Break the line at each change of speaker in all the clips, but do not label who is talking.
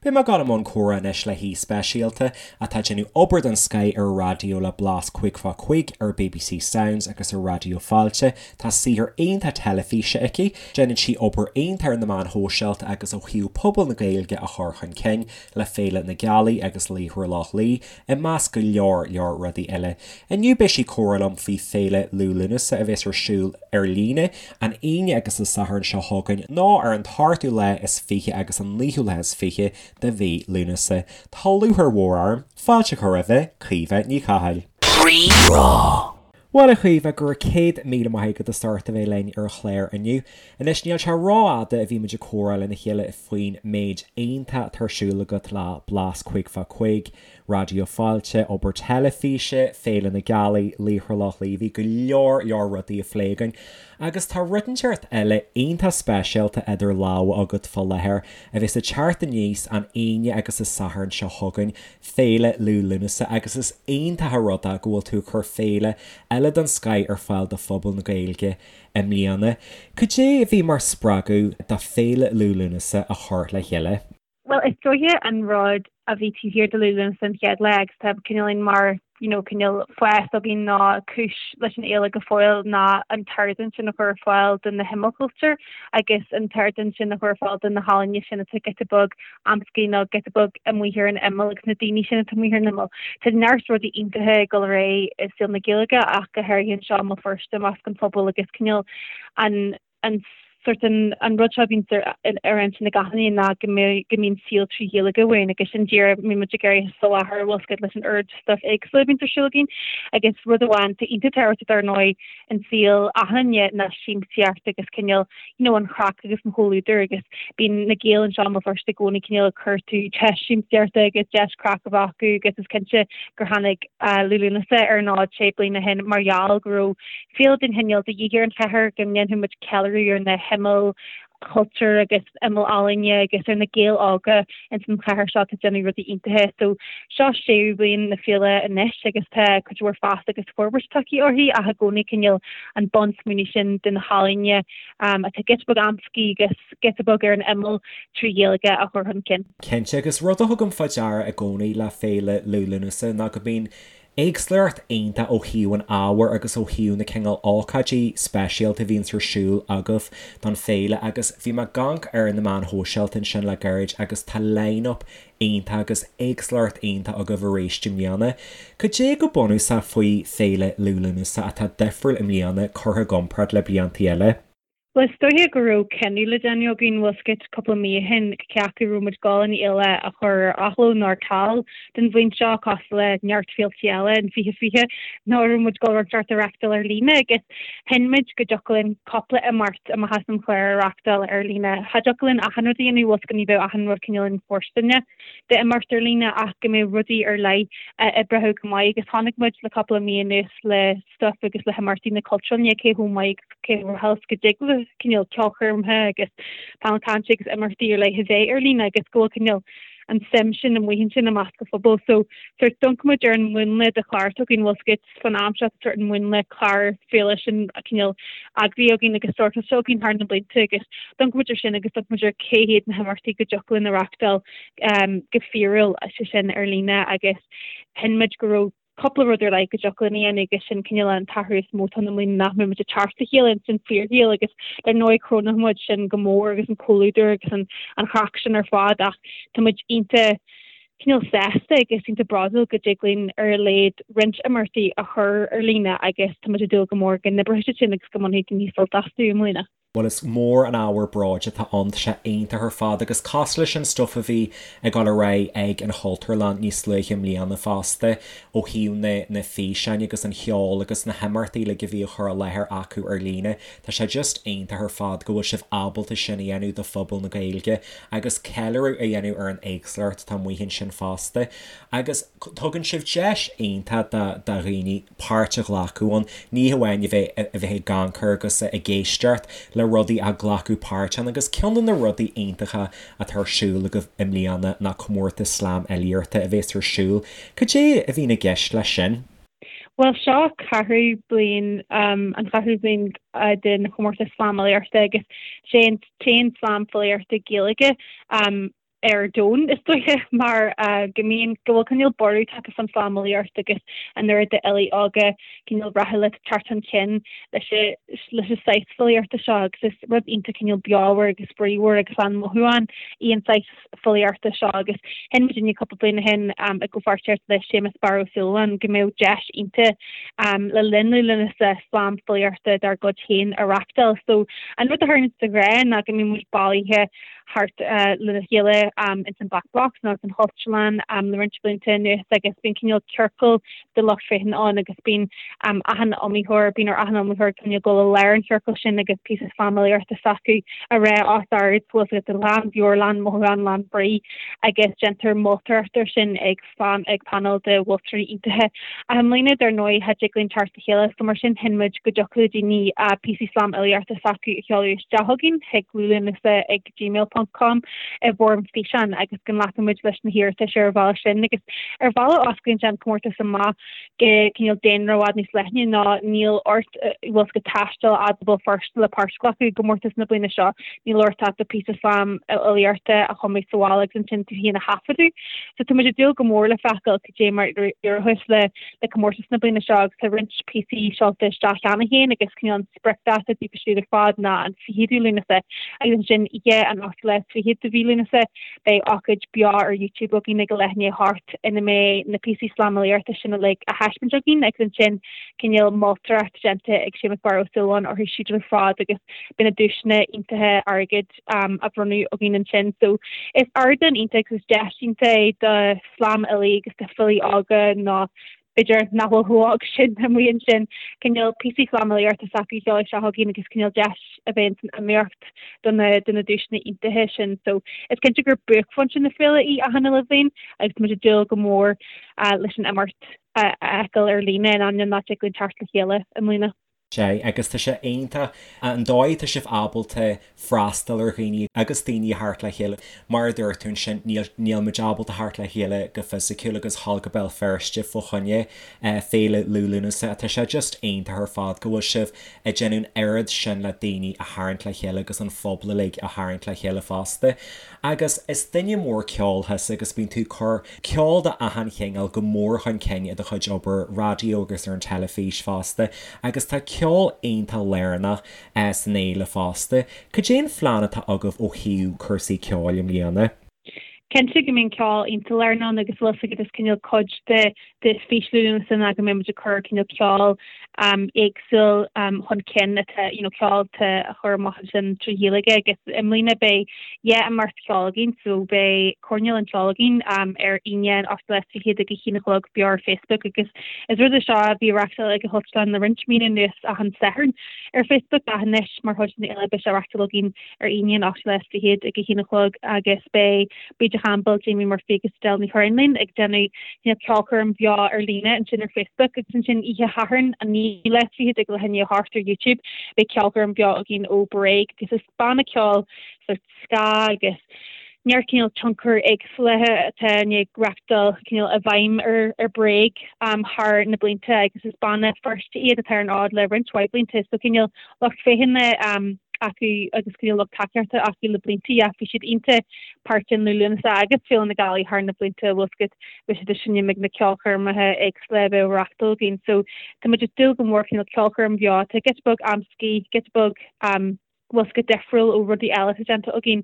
Beidh mé ag dul i mbun comhrá anois le haoi speisialta atá ag déanamh obair den scoith ar an raidió le Blas 5 fá 5 ar bbc Sounds agus ar Raidió Fáilte. Tá saothar iontach teilifíse aici, déanann sí obair iontach ar na meáin shóisialta agus ó thaobh pobal na Gaeilge a chur chun cinn le Féile na Gealaí agus Laochra Loch Lao, i measc go leor leor rudaí eile. Inniu beidh sí ag comhrá liom faoi Féile Liú Lúnasa a bheas ar siúl ar líne an Aoine agus an Satharn seo chugainn nó ar an t-ochtú lá is 20 agus an naoú lá is 20 de mhí Lúnasa. Tá lúcháir mhór orm fáilte a chur roimhe, Caoimhe Ní Chathail. Rí-Rá. Bhuel, a Chaoimhe, go raibh 100,000 maith agat as ucht a bheith linn ar an chlár inniu. Anois, níl sé rófhada a bhí muid ag comhrá lena chéile faoin méid iontach atá ar siúl agat le Blas 5 fá 5, Raidió Fáilte, obair teilifíse, Féile na Gealaí, Laochra Loch Lao, bhí go leor leor rudaí á phlé againn. Agus tá rud inteacht eile iontach speisialta idir lámha agat fá láthair, a bheas ag teacht aníos an Aoine agus an Satharn seo chugainn, Féile Liú Lúnasa agus is iontach an rud é go bhfuil tú ag cur féile eile den scoith ar fáil do phobal na Gaeilge i mbliana. Cad é a bhí mar spreagadh do Féile Liú Lúnasa a chur le chéile?
Bhuel, is dóiche an rud a bhí taobh thiar de Liú Lúnasa an chéad lá agus tá cineál mar you know, cineál fás againn ná cúis leis an fhéile go fóill ná an t-ardán sin a chur ar fáil do na himeallchultúir agus an t-ardán sin a chur ar fáil do na healaíona sin atá giota beag amscaí nó giota beag amuigh ar an imeall agus na daoine sin atá amuigh ar an imeall. Tá neart rudaí iontacha ag dul ar aghaidh i saol na Gaeilge ach go háirithe anseo i mBéal Feirste i measc an phobail agus cineál an an sort an an rud seo a bhíonn ar ar intinn ag achan duine ná go mbeidh go mbíonn saol trí Ghaeilge uainn agus sin díreach mbíonn muid ag iarraidh a soláthar bhfuil a fhios agat leis an oiread stuff éagsúil a bhíonns ar siúl againn agus rud amháin atá iontach tábhachtach dar ndóigh in saol achan duine ná siamsaíocht agus cineál you know an chraic agus an chomhluadar agus bíonn na Gaeil anseo i mBéal Feirste i gcónaí cineál ag cuartú deis siamsaíochta agus deis craic a bheith acu agus is cinnte gur tháinig Liú Lúnasa ar an fhód sé bliana ó shin mar gheall go raibh féile den chineál de dhíth ar an chathair go ndéanfadh muid ceiliúradh ar na himeall chultúir agus imeall ealaíne agus ar na Gaeil óga ins an chathair seo atá ag déanamh rudaí iontacha. So seo séú bliain na féile anois agus tá cuid mhór fás agus forbairt tagtha uirthi ach i gcónaí cineál an bunsmaoineamh sin de na healaíona atá giota beag amscaí agus giota beag ar an imeall trí Ghaeilge a chur chun cinn.
Cinnte, agus rud a thugaim fá deara i gcónaí le Féile Liú Lúnasa ná go mbíonn éagsúlacht iontach ó thaobh an ábhair agus ó thaobh na cineál ócáidí speisialta a bhíonns ar siúl agaibh don féile agus bhí mé ag amharc ar na meáin shóisialta ansin le gairid agus tá line-up iontach agus éagsúlacht iontach agaibh arís i mbliana. Cad é go bunúsach faoi Féile Liú Lúnasa atá difriúil i mbliana curtha i gcomparáid le bliantaí eile?
Bhuel, is dóiche go raibh cinneadh le déanamh againn, bhfuil a fhios agat, cúpla mí ó shin, cé acu raibh muid ag dul an fhéile a chur ar athló nó ar ceal don bhliain seo, cosúil le neart féiltí eile in 2020, nó an raibh muid ag dul rud inteacht a reachtáil ar líne agus chinn muid go dtiocfadh linn cúpla imeacht amach as an chlár a reachtáil ar líne. Cha dtiocfadh linn achan rud a dhéanamh, bhfuil a fhios agat, ní bheadh achan rud cineál infhóirsteanach d'imeacht ar líne ach go mbeadh rudaí ar leith a oibreodh go maith agus chonaic muid le cúpla mí anuas le stuif agus le himeachtaí na Cultúrlainne cé chomh maith agus cé chomh rathúil go dtig le cineál ceolchoirmeacha agus painéil cainte agus imeachtaí ar leith a bheith ar líne agus go bhfuil cineál an suim sin amuigh ansin i measc an phobail. So sort d'amharc muid ar an mhúnla de chlár atá againn bhfuil a fhios agat fan am seo sort an múnla clár féile sin cineál eagraithe againn agus sortáilte againn thar na blianta agus d'amharc muid ar sin agus d'amharc muid ar cé hiad na himeachtaí go dtiocfadh linn a reachtáil go fíorúil sé sin ar líne agus chinn muid go raibh cúpla rud ar leith go dtiocfadh linn a dhéanamh agus sin cineál an t-athrú is mó atá ann i mbliana nach mbeidh muid ag teacht le chéile ins an fíorshaol agus dar ndóigh crónóidh muid sin go mór agus an comhluadar agus an an chraic sin ar fad ach tá muid iontach cineál sásta agus iontach bródúil go dtig linn ar a laghad roinnt imeachtaí a chur ar líne agus tá muid ag dúil go mór go n-oibreoidh siad sin agus go mbainfidh daoine sult astu i mbliana.
Bhuel is mór an ábhar bróid atá ann, tá sé iontach ar fad agus cosúil leis an stuif a bhí ag dul ar aghaidh ag an Chultúrlann níos luaithe i mbliana fosta ó thaobh na na físeáin agus an cheoil agus na himeachtaí uilig a bhí á chur i láthair acu ar líne, tá sé just iontach ar fad go bhfuil sibh ábalta sin a dhéanamh do phobal na Gaeilge agus ceiliúradh a dhéanamh ar an éagsúlacht atá amuigh ansin fosta agus tugann sibh deis iontach do do dhaoine páirt a ghlacadh ann, ní hamháin a bheith a bheith ag amharc agus ag éisteacht le rudaí ach glacadh páirt ann agus ceann de na rudaí iontacha atá ar siúl agaibh i mbliana ná comórtas slam fhilíochta a bhéas ar siúl. Cad é a bhíonn i gceist leis sin?
Bhuel, seo ceathrú bliain, an cheathrú bliain den chomórtas slam fhilíochta agus sé an t-aon slam filíochta Gaeilge. ar domhan, is dóiche, mar go mbíonn, go bhfuil cineál borradh tagtha fán slamfhilíocht agus an oiread d'fhilí óga cineál rathúla ag teacht chun cinn leis leis an saghas filíochta seo agus is rud iontach cineál beomhar agus bríomhar agus lán mothúchán í an saghas filíochta seo agus chinn muidinne cúpla bliain ó shin i gcomhpháirtíocht le Séamus Barra Ó Súilleabháin go mbeadh deis iontach le linn Liú Lúnasa slam filíochta dár gcuid féin a reachtáil. So an rud a tharlaíonn de ghnáth ná go mbíonn muid bailithe thart lena chéile ins an Black Box nó ins an Chultúrlann le roinnt blianta anuas agus bíonn cineál ciorcal de lucht féachana ann agus bíonn achan iomaitheoir, bíonn ar achan iomaitheoir cineál dul i lár an chiorcail sin agus píosa slamfhilíochta s'acu a rá os ard, bhfuil a fhios agat, lán beoir, lán mothúchán, lán brí agus déantar moltóireacht air sin ag ag painéal de mholtóirí iontacha. Ach i mbliana, dar ndóigh, cha dtig linn teacht le chéile so mar sin chinn muid go dtiocfadh le daoine píosaí slamfhilíochta s'acu a sheoladh isteach chugainn chuig liúlúnasa ag gmail ponc com i bhfoirm físeáin agus go nglacfaidh muid leis na hiarratais ar an bhealach sin agus ar bhealach osclaíonn sé an comórtas amach go cineál daonra i bhfad níos leithne ná níl ort bhfuil a fhios agat taisteal fhad go Béal Feirste le páirt a ghlacadh i gcomórtas na bliana seo. Níl ort ach do phíosa slamfhilíochta a chumadh sa bhaile agus ansin tú féin a thaifeadadh. So tá muid ag dúil go mór le feiceáil cad é mar a éireoidh le le comórtas na bliana seo agus tá roinnt píosaí seolta isteach cheana féin agus cineál an spriocdháta daofa siúd ar fad ná an 20ú Lúnasa agus ansin oíche an 28ú lá de mhí Lúnasa beidh ócáid beo ar YouTube againn ag a leath i ndiaidh a hocht ina mbeidh na píosaí slamfhilíochta sin uilig á thaispeáint againn agus ansin cineál moltóireacht déanta ag Séamus Barra Ó Súilleabháin orthu siúd ar fad agus beidh na duaiseanna iontacha airgid á bhronnadh againn ansin. So is ardán iontach agus deis iontach é do shlamfhilí agus do filí óga nó b'fhéidir nach bhfuil chomh hóg sin amuigh ansin, cineál píosaí slamfhilíochta s'acu a sheoladh isteach chugainn agus cineál deis a bheith san iomaíocht do na do na duaiseanna iontacha sin. So is cinnte gur buaicphointe na féile í achan uile bhliain agus tá muid ag dúil go mór leis an imeacht a fheiceáil ar líne in ainneoin nach dtig linn teacht le chéile i mbliana.
Sea, agus tá sé iontach an dóigh atá sibh ábalta freastal ar dhaoine agus daoine a thabhairt le chéile. Mar a dúirt tú ansin, níl, níl muid ábalta theacht le chéile go fisiciúil agus dhul go Béal Feirste fá choinne Féile Liú Lúnasa. Tá sé just iontach ar fad go bhfuil sibh ag déanamh an oiread sin le daoine a tharraingt le chéile agus an phobal uilig a tharraingt le chéile fosta. Agus is duine mór ceoil thusa agus bíonn tú ag cur ceol de achan chineál go mór chun cinn i do chuid obair raidió agus ar an teilifís fosta agus tá ceol iontach lárnach san fhéile fosta. Cad é an phlean atá agaibh ó thaobh cúrsaí ceoil i mbliana?
Cinnte go mbíonn ceol iontach lárnach ann agus bhfuil a fhios agat is cineál cuid de de fhís Liú Lúnasa ná go mbeidh muid ag cur cineál ceol éagsúil chun cinn atá you know ceol atá á chur amach ansin trí Ghaeilge agus i mbliana beidh dhá imeacht cheoil againn so beidh Coirnéal an Cheoil againn ar Aoine an 28ú lá ag a haon a chlog beo ar Facebook agus is rud é seo a bhí á reachtáil ag an Chultúrlann le roinnt míonna anuas achan Satharn ar Facebook ach anois mar chuid den fhéile beidh sé á reachtáil againn ar Aoine an 28ú lá ag a haon a chlog agus beidh Bríde Chaimbeul, Jamie Murphy agus Edel Ní Churráin linn ag déanamh ceolchoirm bheo ar líne ansin ar Facebook agus ansin oíche Shathairn an 29ú lá ag leath i ndiaidh a hocht ar YouTube beidh ceolchoirm bheo againn ó Bréag agus is banna ceoil sort ska agus neart cineál tionchar éagsúla atá i ndiaidh reachtáil cineál i bhfeidhm ar ar Bréag thar na blianta agus is banna Feirste iad atá ar an fhód le roinnt mhaith blianta so cineál lucht féachana acu agus cineál lucht tacaíochta acu le blianta ach bhí siad iontach páirteach in Liú Lúnasa agus Féile na Gealaí thar na blianta bhfuil a fhios agat bhí siad ag seinm ag na ceolchoirmeacha éagsúla a bheadh á reachtáil againn so tá muid ag dúil go mór cineál ceolchoirm bheo atá giota beag amscaí giota beag bhfuil a fhios agat difriúil ó rudaí eile atá déanta againn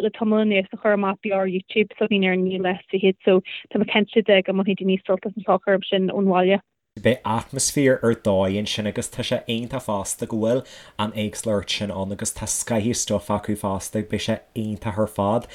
le tamall anuas a chur amach beo ar YouTube s'againn ar an naoú lá is fichead so tá mé cinnte de go mbainfidh daoine sult as an cheolchoirm sin ón bhaile.
Beidh atmaisféar ar dóigh ansin agus tá sé iontach fosta go bhfuil an éagsúlacht sin ann agus tá scaitheamh stuif acu fosta, beidh sé iontach ar fad.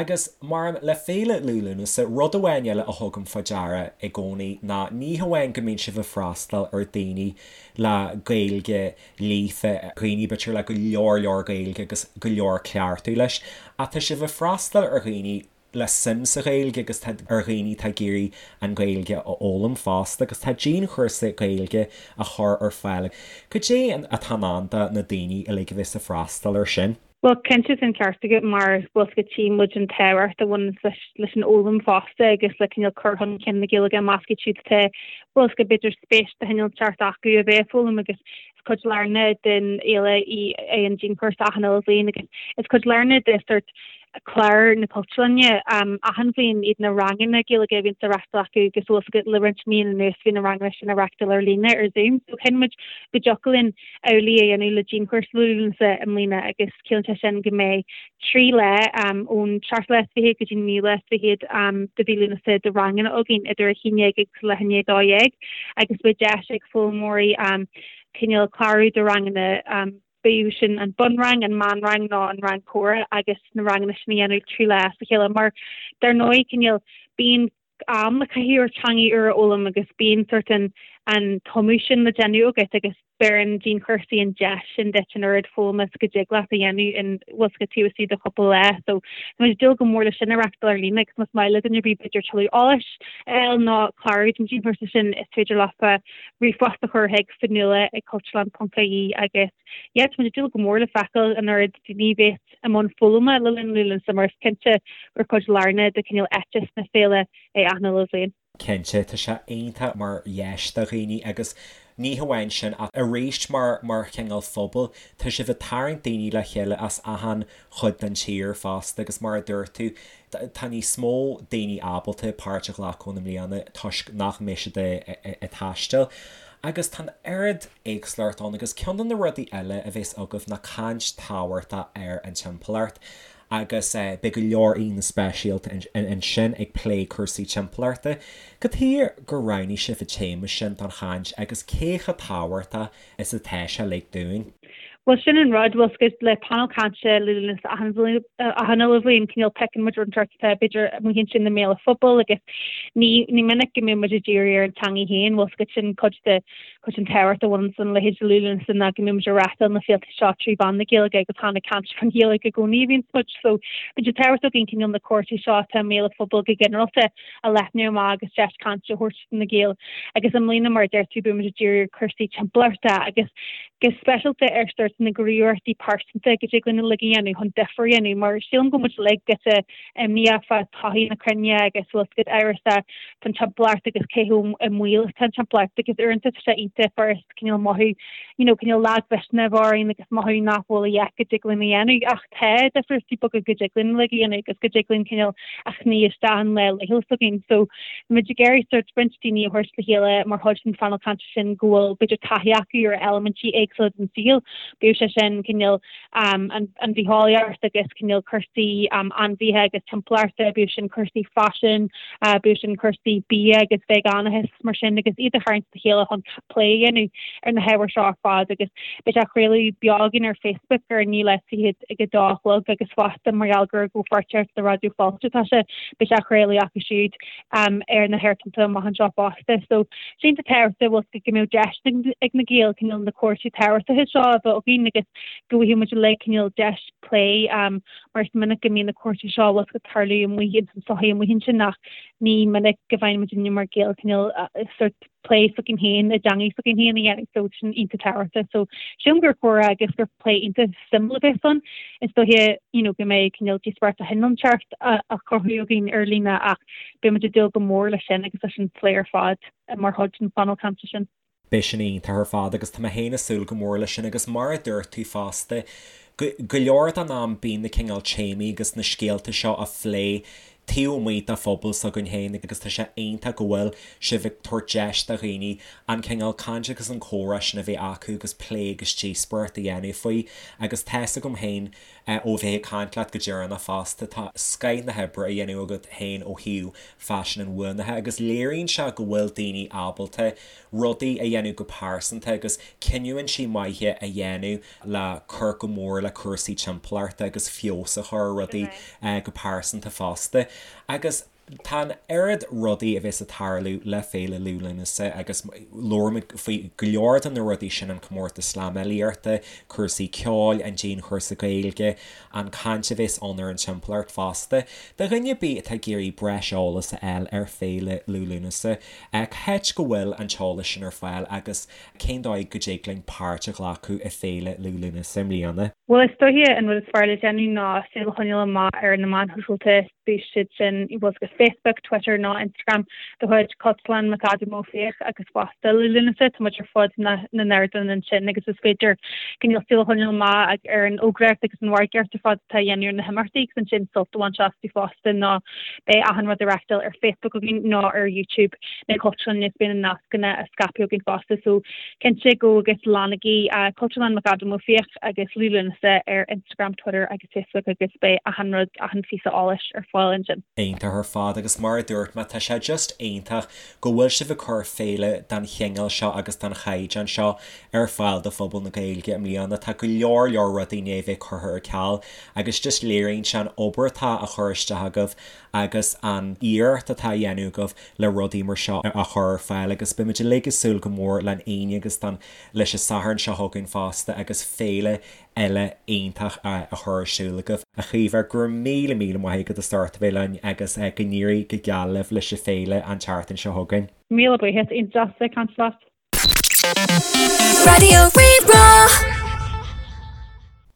Agus mar le Féile Liú Lúnasa, rud amháin eile a thugaim fá deara i gcónaí ná ní hamháin go mbíonn sibh ag freastal ar daoine le Gaeilge líofa, dhaoine b'fhéidir le go leor leor Gaeilge agus go leor cleachtadh leis, ach tá sibh ag freastal ar dhaoine le suim sa Ghaeilge agus tá ar dhaoine atá ag iarraidh an Ghaeilge a fhoghlaim fosta agus tá dianchúrsa Gaeilge á chur ar fáil. Cad é atá i ndán do na daoine uilig a bheas ag freastal air sin?
Bhuel, cinnte tá an ceart agat mar bhfuil a fhios agat tchí muid an tábhacht a bhaineann leis leis an fhoghlaim fosta agus le cineál cur chun cinn na Gaeilge i measc iad siúd atá bhfuil a fhios agat b'fhéidir spéis de chineál inteacht acu a bheith ag foghlaim agus. cuid lárnach den fhéile í é an dianchúrsa achan uile bhliain agus is cuid lárnach de sort clár na Cultúrlainne achan bhliain iad na ranganna Gaeilge a bhíonns á reachtáil acu agus bhfuil fhios agat le roinnt míonna anuas bhí na ranganna sin á reachtáil ar líne ar Zoom so chinn muid go dtiocfadh linn amhlaidh a dhéanamh le dianchúrsa Liú Lúnasa i mbliana agus ciallaíonn sé sin go mbeidh 3 lá ón seachtú lá is fichead go dtí an naoú lá is fichead de mhí Lúnasa de ranganna againn idir 11 agus leath i ndiaidh 12 agus beidh deis ag foghlaimeoirí cineál clárú do ranganna bíodh sin an bunrang, an meánrang nó an rang comhrá agus na ranganna sin a dhéanamh 3 lá as a chéile mar dar ndóigh cineál bíonn am le caitheamh ar teangaidh úr a fhoghlaim agus bíonn sort an an tumadh sin le déanamh agat agus beireann dianchúrsaí an deis sin duit an oiread foghlama is go dtig leat a dhéanamh in bhfuil fhios agat taobh istigh de chúpla lá. So tá muid ag dúil go mór leis sin a reachtáil ar líne agus más maith le duine ar bith b'fhéidir tuilleadh eolais a fháil nó clárú don dianchúrsa sin is féidir leofa ríomhphost a chur chuig fionnuala ag cultúrlann.ie agus yeah tá muid ag dúil go mór le feiceáil an oiread daoine a bheas i mbun foghlama le linn Liú Lúnasa mar is cinnte gur cuid lárnach de cineál éiteas na féile é achan uile bhliain.
Cinnte, tá sé iontach mar dheis do dhaoine agus ní hamháin sin ach arís mar mar chineál phobal, tá sibh ag tarraingt daoine le chéile as achan chuid den tír fosta agus mar a dúirt tú, tá níos mó daoine ábalta páirt a ghlacadh ann i mbliana toisc nach mbeidh siad ag taisteal. Agus tá an oiread éagsúlacht ann agus ceann de na rudaí eile a bheas agaibh ná caint tábhachtach ar an timpeallacht agus beidh go leor aíonna speisialta ansin ag plé cúrsaí timpeallachta. Cad chuige gur roghnaigh sibh an téama sin don chaint agus cé chomh tábhachtach is atá sé uilig dúinn?
Bhuel sin an rud, bhfuil 's agat le panel cainte Liú Lúnasa achan bhliain, achan uile bhliain, cineál piocann muid rud inteacht atá b'fhéidir amuigh ansin i mbéal an phobail agus ní, ní minic go mbíonn muid ag díriú ar an teangaidh féin, bhfuil 's agat sin cuid de, cuid den tábhacht a bhaineann lena leithéid de Liú Lúnasa ná go mbíonn muid ag reáchtáil na féilte seo trí mheán na Gaeilge agus chan ag caint faoin Ghaeilge i gcónaí a bhíonns muid. So bíonn sé tábhachtach againn cineál na cúrsaí seo atá i mbéal an phobail go ginearálta a leathnú amach agus deis cainte a thabhairt do na Gaeil. Agus i mbliana, mar a deir tú, beidh muid ag díriú ar chúrsaí timpeallachta agus go speisialta ar sórt na gníomhaíochtaí pearsanta go dtig linn uilig a dhéanamh chun difear a dhéanamh mar sílim go bhfuil muid uilig giota imníoch fá todhchaí na cruinne agus bhfuil 's agat amhrasach faoin timpeallacht agus cé chomh i mbaol atá an timpeallacht agus uaireanta tá sé iontach furast cineál mothú you know cineál lagmhisneach a bheith orainn agus mothú nach bhfuil a dhath go dtig linn a dhéanamh ach tá difríochtaí beaga go dtig linn uilig a dhéanamh agus go dtig linn cineál a shnoí isteach an lá laethúil s'againn. So tá muid ag iarraidh sórt roinnt daoine a thabhairt le chéile mar chuid den phainéal cainte sin go bhfuil b'fhéidir taithí acu ar eilimintí éagsúla den saol, bíodh sé sin cineál um, an, an bhitheolaíocht agus cineál cúrsaí um, ainmhithe agus timpeallachta, bíodh sin cúrsaí faisin, uh, bíodh sin cúrsaí bia agus veigeánachas mar sin agus iad a tharraingt le chéile chun plé a dhéanamh ar na hábhair seo ar fad agus beidh sé á chraoladh beo againn ar Facebook ar an naoú lá is fichead ag a dó a chlog agus fosta mar gheall gur i gcomhpháirtíocht le Raidió Fáilte atá sé, beidh sé á chraoladh acu siúd ar na haerthonnta amach anseo fosta. So sin tá tábhachtach bhfuil go mbeadh deis ag na Gaeil cineál na cúrsaí tábhachtacha seo a bheith againn agus go bhfaighidh muid uilig cineál deis plé mar is minic go mbíonn na cúrsaí seo bhfuil ag tarlú amuigh ins an tsochaí amuigh ansin ach ní minic go bhfaigheann muid mar Ghaeil cineál sórt plé s'againn féin i dteangaidh s'againn féin a dhéanamh so sin iontach tábhachtach. So sílim gur comhrá agus gur plé iontach suimiúil a bheas ann. Is dóiche you know go mbeidh cineál díospóireacht de chineál inteacht á chruthú againn ar líne ach beidh muid ag dúil go mór leis sin agus leis an phlé ar fad mar chuid den phainéal cainte sin.
Beidh sin iontach ar fad agus tá mé féin ag súil go mór leis sin agus mar a dúirt tú fosta, go leor den am bíonn na cineál téamaí agus na scéalta seo á phlé taobh amuigh de phobal s'againn féin agus tá sé iontach go bhfuil sibh ag tabhairt deis do dhaoine an cineál caint agus an comhrá sin a bheith acu agus plé agus díospóireacht a dhéanamh faoi agus tá's agam féin ó bheith ag caint leat go deireanach fosta, tá scoith na hoibre á dhéanamh agat féin ó thaobh faisean inbhuanaithe agus léiríonn sé go bhfuil daoine ábalta rudaí a dhéanamh go pearsanta agus cinniúintí maithe a dhéanamh le cur go mór le cúrsaí timpeallachta agus feabhas a chur ar rudaí go pearsanta fosta. Agus. Tá an oiread rudaí a bheas ag tarlú le Féile Liú Lúnasa agus labhair muid faoi go leor de na rudaí sin, an comórtas slamfhilíochta, cúrsaí ceoil, an dianchúrsa Gaeilge, an caint a bheas ann ar an timpeallacht fosta. Do dhuine ar bith atá ag iarraidh breis eolas a fháil ar Féile Liú Lúnasa, cá háit go bhfuil an t-eolas sin ar fáil agus cén dóigh go dtig linn páirt a ghlacadh i Féile Liú Lúnasa i mbliana?
Bhuel, is dóiche an rud is fearr le déanamh ná súil a choinneáil amach ar na meáin shóisialta. Beidh siad sin i bhfuil Facebook, Twitter nó Instagram de chuid Cultúrlann McAdam Ó Fiaich agus fosta Liú Lúnasa. Tá muid ar fud na n-ardán ansin agus is féidir cineál súil a choinneáil amach ar an fhógraíocht agus an mhargaíocht ar fad atá á dhéanamh ar na himeachtaí agus ansin sult a bhaint astu fosta nó beidh achan rud á reáchtáil ar Facebook againn nó ar YouTube na Cultúrlainne is beidh na nascanna á scaipeadh againn fosta so cinnte go agus leanaigí Cultúrlann McAdam Ó Fiaich agus Liú Lúnasa ar Instagram, Twitter agus Facebook agus beidh achan rud, achan phíosa eolais ar fáil ansin.
Iontach ar fad agus mar a dúirt mé tá sé just iontach go bhfuil sibh ag cur féile den chineál seo agus den chaighdeán seo ar fáil do phobal na Gaeilge i mbliana. Tá go leor leor rudaí i ndiaidh bheith curtha ar ceal agus just léiríonn sé an obair atá á chur isteach agaibh agus an iarracht atá á dhéanamh agaibh le rudaí mar seo a chur ar fáil agus beimid uilig ag súil go mór len Aoine agus don leis an Satharn seo chugainn fosta agus féile eile iontach a chur ar siúl agaibh. A Chaoimhe, go raibh míle míle maith agat as ucht a bheith linn agus go n-éirí go geal libh leis an féile an tseachtain seo chugainn.
Míle buíochas, iontach deas a bheith ag caint leat.
Raidió Rí-Rá.